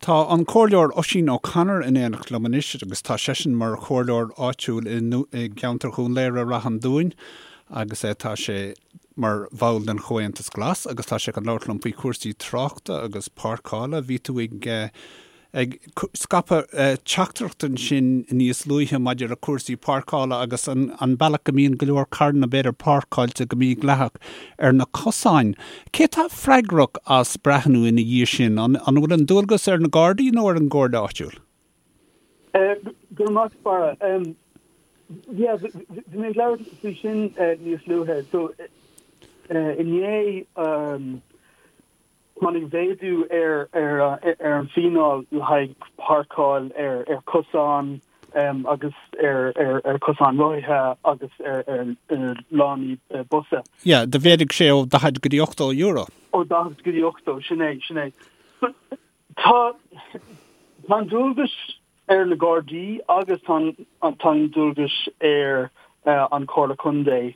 Tá an Comhairleoir Oisín O'Connor in éineacht liom anois agus tá seisean mar chomhairleoir áitiúil i gceantar Dhún Laoghaire-Rath an Dúin agus tá sé mar bhall den Chomhaontas Glas agus tá sé chun labhairt liom faoi chúrsaí tráchta agus páirceála. Bhí tú ag ag scaipeadh teachtaireacht ansin níos luaithe maidir le cúrsaí páirceála agus an bealach go mbíonn go leor carranna b'fhéidir páirceáilte go mídhleathach ar na cosáin. Cé atá freagrach as breathnú ina dhiaidh sin? An bhfuil an dualgas ar na Gardaí nó ar an gComhairle áitiúil? Go raibh maith agat, Barra. Yeah, bhí mé ag labhairt faoi sin níos luaithe. So, inné, Tháinig mhéadú ar an bhfíneáil le haghaidh páirceáil ar chosáin agus ar chosáin rothaithe agus ar lánaí busa. Yeah, do mhéadaigh sé ó 40 go dtí €80. Ó 40 go dtí 80, sin é, sin é. Tá an dualgas ar na Gardaí agus tá an dualgas ar an Chomhairle Contae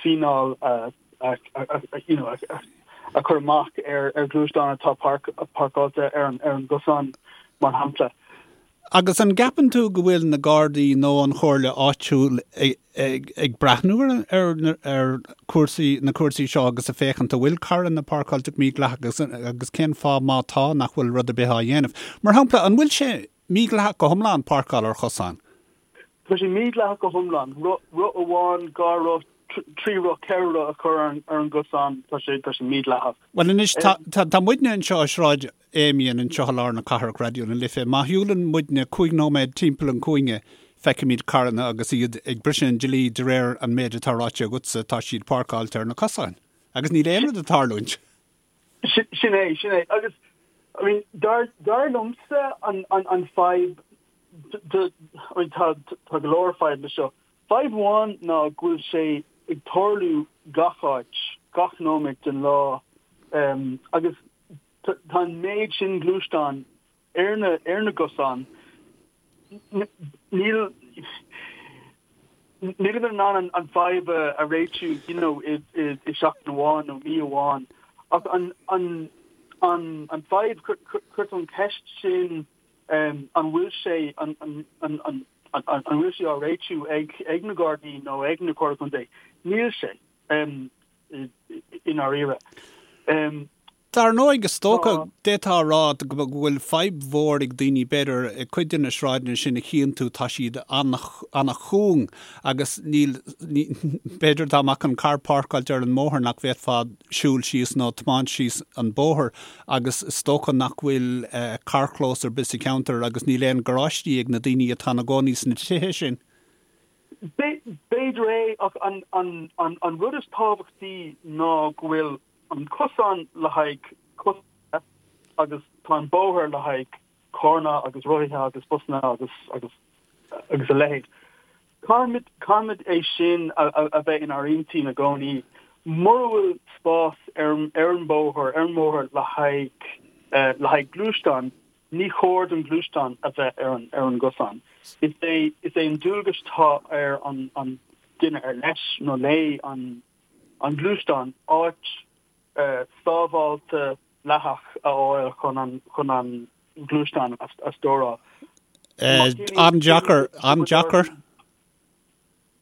fíneáil a a chur amach ar ghluaisteáin atá páirceáilte ar an gcosán, mar shampla. Agus an gceapann tú go bhfuil na Gardaí nó an Chomhairle áitiúil ag breathnú ar ar cúrsaí, na cúrsaí seo agus ag féachaint an bhfuil carranna páirceáilte go mídhleathach agus cén fáth má tá nach bhfuil rud ar bith á dhéanamh? Mar shampla, an bhfuil sé mídhleathach go hiomlán páirceáil ar chosán? Tá sé mídhleathach go hiomlán. Roth amháin, 2 roth, 3 roth, 4 roth a chur ar an gcosán, tá sé tá sé mídhleathach. Bhuel anois, tá tá muidne anseo i Sráid Amiens anseo i lár na cathrach, Raidió na Life. Má shiúlann muidne 5 nóiméad timpeall an chúinne, feicimid carranna agus iad ag briseadh an dlí de réir an méid atá ráite agatsa, tá siad páirceáilte ar na cosáin. Agus níl aon rud ag tarlúint. Sin é, sin é. Agus, I mean, dar dar liomsa an an an fadhb I mean, tá tá go leor fadhb le seo. Fadhb amháin ná go bhfuil sé ag tarlú gach áit, gach nóiméad den lá, agus tá an méid sin gluaisteán ar na ar na gcosáin, níl nílimid in ann an fadhb a réitiú you know i i seachtain amháin nó mí amháin. Ach an an an an fadhb chuir tú an ceist sin an bhfuil sé an an an an an bhfuil sé á réitiú ag ag na Gardaí nó ag na Comhairle Contae? Níl sé i ndáiríre. Dar ndóigh, is dócha, d'fhéadfá a rá go bhfuil fadhb mhór ag daoine, b'fhéidir, i cuid de na sráideanna sin a chíonn tú, tá siad an-chúng agus níl, b'fhéidir dá mbeadh an carr páirceáilte ar an mbóthar nach bhféadfá siúl síos nó tiomáint síos an bóthar agus is dócha nach bhfuil carrchlós ar bith sa cheantar agus níl aon garáistí ag na daoine atá ina gcónaí sna tithe sin. B'fhéidir é ach an rud is tábhachtaí ná go bhfuil an cosán le haghaidh coisithe agus tá an bóthar le haghaidh carranna agus rothaithe agus busanna agus agus agus a leithéid. Caithfimid caithfimid é sin a a bheith inár intinn i gcónaí. Mura bhfuil spás ar ar an bóthar ar an mbóthar le haghaidh le haghaidh gluaisteán, ní chóir don ghluaisteán a bheith ar an ar an gcosán. Is é is é an dualgas atá ar an an duine ar leis nó léi an an gluaisteán, áit sábháilte dleathach a fháil chun an chun an gluaisteán a stóráil. An-deacair, an-deacair.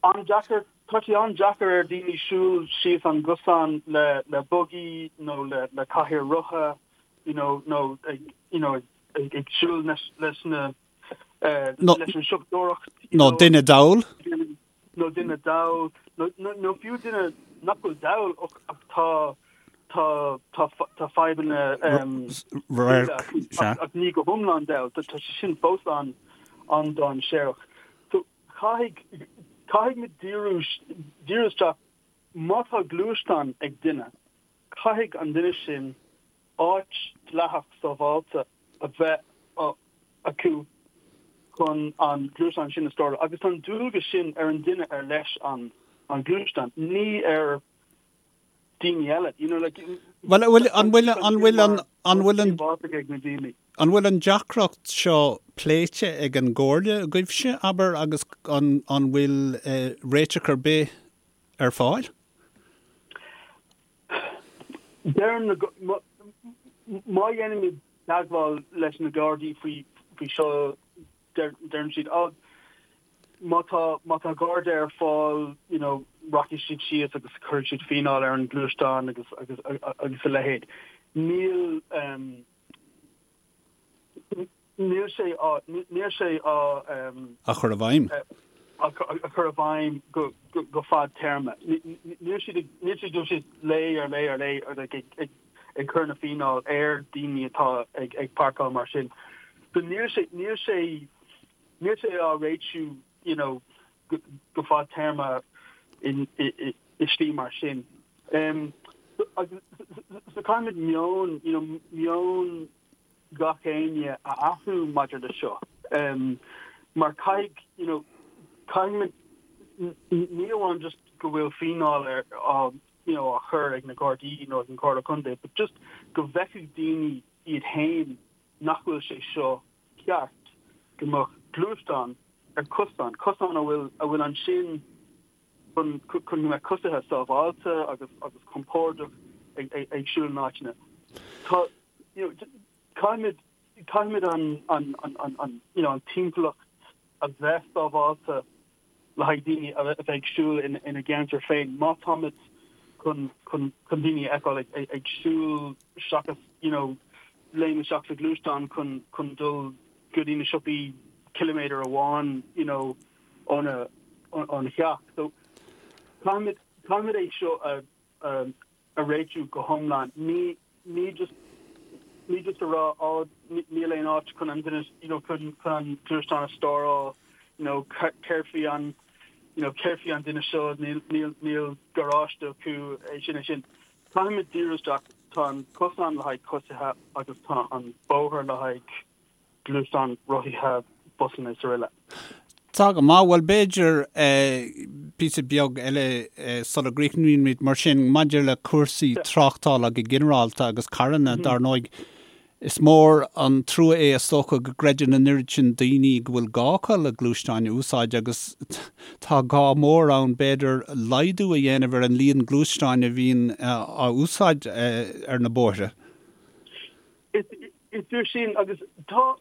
An-deacair, tá sé an-deacair ar daoine siúl síos an gcosán le le bugaí nó le le cathaoir rotha you know nó ag you know ag ag siúl leis leis na leis an siopadóireacht you know. Nó duine dall. nó duine dall, nó fiú duine nach bhfuil dall ach tá tá tá tá fadhbanna radhairc ach ní go hiomlán dall, tá sé sin fós an an-dainséarach. So caithfidh caithfidh muid díriú díriú isteach má tá gluaisteán ag duine, caithfidh an duine sin áit dleathach sábháilte a bheith acu chun an gluaisteán sin a stóráil agus tá an dualgas sin ar an duine ar leis an an gluaisteán, ní ar daoine eile. You know, like, Bhuel, an bhfuil, an bhfuil, an bhfuil an, an bhfuil an, ag na daoine. an bhfuil an deacracht seo pléite ag an gComhairle agaibhse, abair, agus an, an bhfuil réiteach ar bith ar fáil? Deirim na, má dhéanaimid. teagmháil leis na Gardaí faoi faoi seo deireann siad oh má tá má tá Garda ar fáil you know rachaidh siad síos agus cuirfidh siad fíneáil ar an gluaisteán agus agus agus a leithéid. Níl um, Níl sé á, níl sé á. Á chur i bhfeidhm. Á chur i bhfeidhm go, go fadtéarma. Níl siad ag, níl siad dul síos lá ar lá ar lá ag, ag, ag cur na fíneáil ar daoine atá ag, ag páirceáil mar sin. So níl sé, níl sé, níl sé á réitiú, you know, go, go fadtéarma in, i, i, i slí mar sin. Um, so, so caithfimid meon, you know, meon gach éinne a athrú maidir le seo mar caithfidh you know caithfimid ní amháin just go bhfuil fíneáil ar á you know á chur ag na Gardaí nó ag an Comhairle Contae but just go bhfeicfidh daoine iad féin nach bhfuil sé seo ceart go mbeadh gluaisteán ar cosán, cosán a bhfuil a bhfuil ansin chun chun go mbeadh coisithe sábháilte agus agus compordach ag ag ag siúl in áiteanna. Tá you know, caithfimid, caithfimid an, an, an, an, an, you know, an timpeallacht a bheith sábháilte le haghaidh daoine a bheith ag siúl in, ina gceantar féin. Má táimid chun, chun, chun daoine a fheiceáil ag, ag, ag siúl seachas, you know, léim isteach sa ghluaisteán chun, chun dul go dtí na siopaí ciliméadar amháin, you know, óna, óna theach. So, caithfimid, caithfimid é seo a, a, a réitiú go hiomlán. Ní ní just ní just a rá á níl aon áit chun an duine you know chun chun an gluaisteán a stóráil you know céard faoi an you know céard faoi an duine seo níl níl níl garáiste acu é sin é sin. Caithfimid díriú isteach tá an cosán le haghaidh coisithe agus tá an bóthar le haghaidh gluaisteáin, rothaithe, busanna is aroile. Tá go maith. Bhuel, b'fhéidir píosa beag eile sula gcríochnaímid mar sin, maidir le cúrsaí tráchtála go ginearálta agus carranna, dar ndóigh, is mór an trua é is dócha go gcreideann an oiread sin daoine go bhfuil gá acu le gluaisteáin a úsáid agus tá gá mór ann, b'fhéidir, laghdú a dhéanamh ar an líon gluaisteáin a bhíonn á úsáid ar na bóithre. Is fíor sin agus tá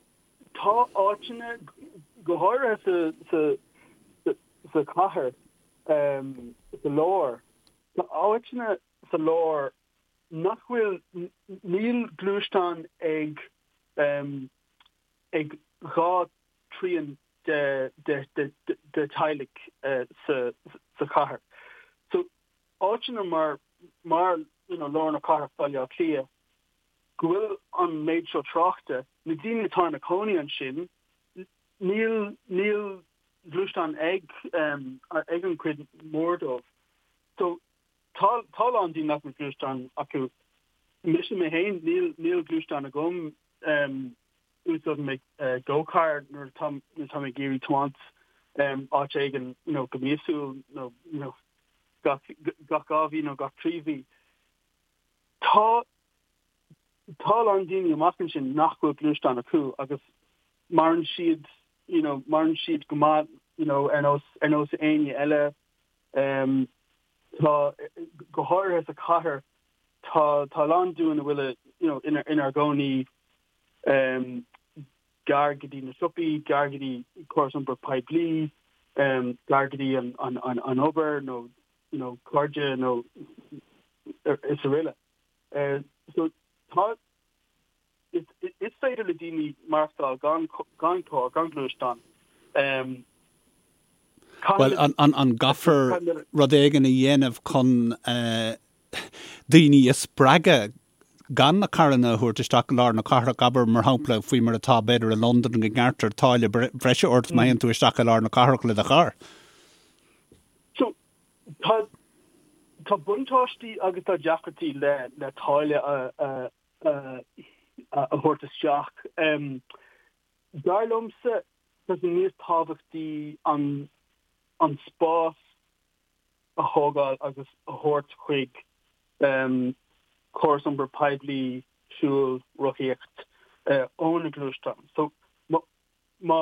tá áiteanna, go háirithe sa sa sa chathair, sa lár, tá áiteanna sa lár nach bhfuil, níl gluaisteán ag ag 2 trian de de de de teaghlaigh sa sa chathair. So áiteanna mar mar you know lár na cathrach Baile Átha Cliath, go bhfuil an méid seo tráchta, na daoine atá ina cónaí ansin, níl, níl gluaisteán ag, ag an chuid mór dóibh. So, tá, tá a lán daoine nach bhfuil gluaisteán acu. Mise mé féin, níl, níl gluaisteán agam, úsáidim mé GoCar nuair atá, nuair atá mé ag iarraidh tiomáint áit éigin, you know, go míosúil nó, you know, gach, gach 2 mhí nó gach 3 mhí. Tá tá a lán daoine amach ansin nach bhfuil gluaisteán acu agus maireann siad you know maireann siad go maith you know ar nós ar nós éinne eile. Um, tá go háirithe sa chathair tá tá a lán dúinn a bhfuil you know ina inár gcónaí um, gar go dtí na siopaí, gar go dtí córas iompair poiblí, um, gar go dtí an, an, an, an obair nó you know, cairde nó is aroile. So tá, is is féidir le daoine maireachtáil gan gan carr, gan gluaisteán. Bhuel, an an an gcaithfear rud éigin a dhéanamh chun daoine a spreagadh gan na carranna a thabhairt isteach i lár na cathrach, abair, mar shampla, faoi mar atá, b'fhéidir, i Londain, go ngearrtar táille bhreise ort má théann tú isteach i lár na cathrach le do charr? So, tá, tá buntáistí agus tá deacrachtaí le, le táille a, a, a, a thabhairt isteach. Um, dar liomsa, tá sé níos tábhachtaí an, an spás a thógáil agus a thabhairt chuig um, córas iompair poiblí, siúl, rothaíocht, uh, ó na gluaisteáin. So, má, má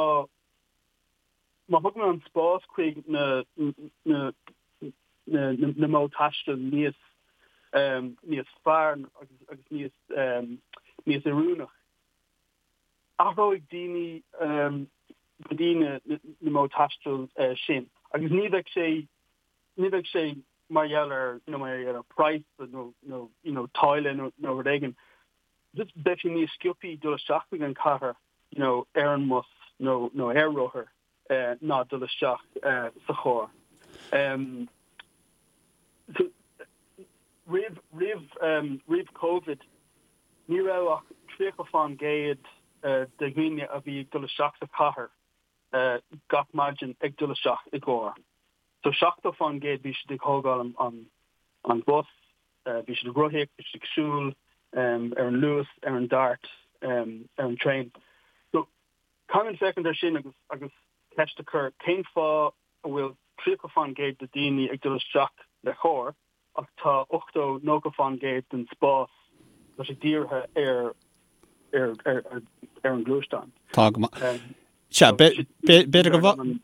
Má thugann an spás chuig na na modh taistil níos níos fearr agus níos níos oiriúnach. Athróidh daoine go dtí na modh taistil sin agus ní bheidh sé, ní bheidh sé mar gheall ar, you know, mar gheall ar price nó, nó, you know, táille nó, nó rud éigin. Just beidh sé níos sciobthaí dul isteach chuig an chathair, you know, ar an mbus nó, nó ar rothar ná dul isteach sa charr. So, roimh, roimh, roimh Covid, Ní raibh ach 30 fán gcéad de dhaoine a bhí ag dul isteach sa chathair gach maidin ag dul isteach i gcarr. So 70 fán gcéad bhí siad ag thógáil an bus, bhí siad ag rothaíocht, bhí siad ag siúl, ar an Luas, ar an Dart, ar an traein. So caithfimid féachaint ar sin agus agus ceist a chur cén fáth a bhfuil 30 fán gcéad de daoine ag dul isteach le carr ach tá 80, 90 fán gcéad den spás, tá sé dírithe ar ar ar ar an ngluaisteán. Tá go maith. Sea, b'fhéidir go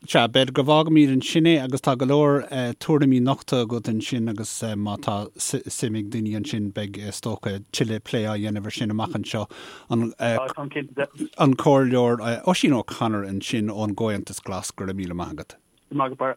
sea, b'fhéidir go bhfágfaimid ansin é agus tá go leor tuairimí nochta agat ansin agus má tá suim ag daoine ansin beidh is dócha tuilleadh plé á dhéanamh ar sin amach anseo. An an Comhairleoir Oisín O'Connor ansin ón gComhaontas Glas, go raibh míle maith agat. Maith go Barra.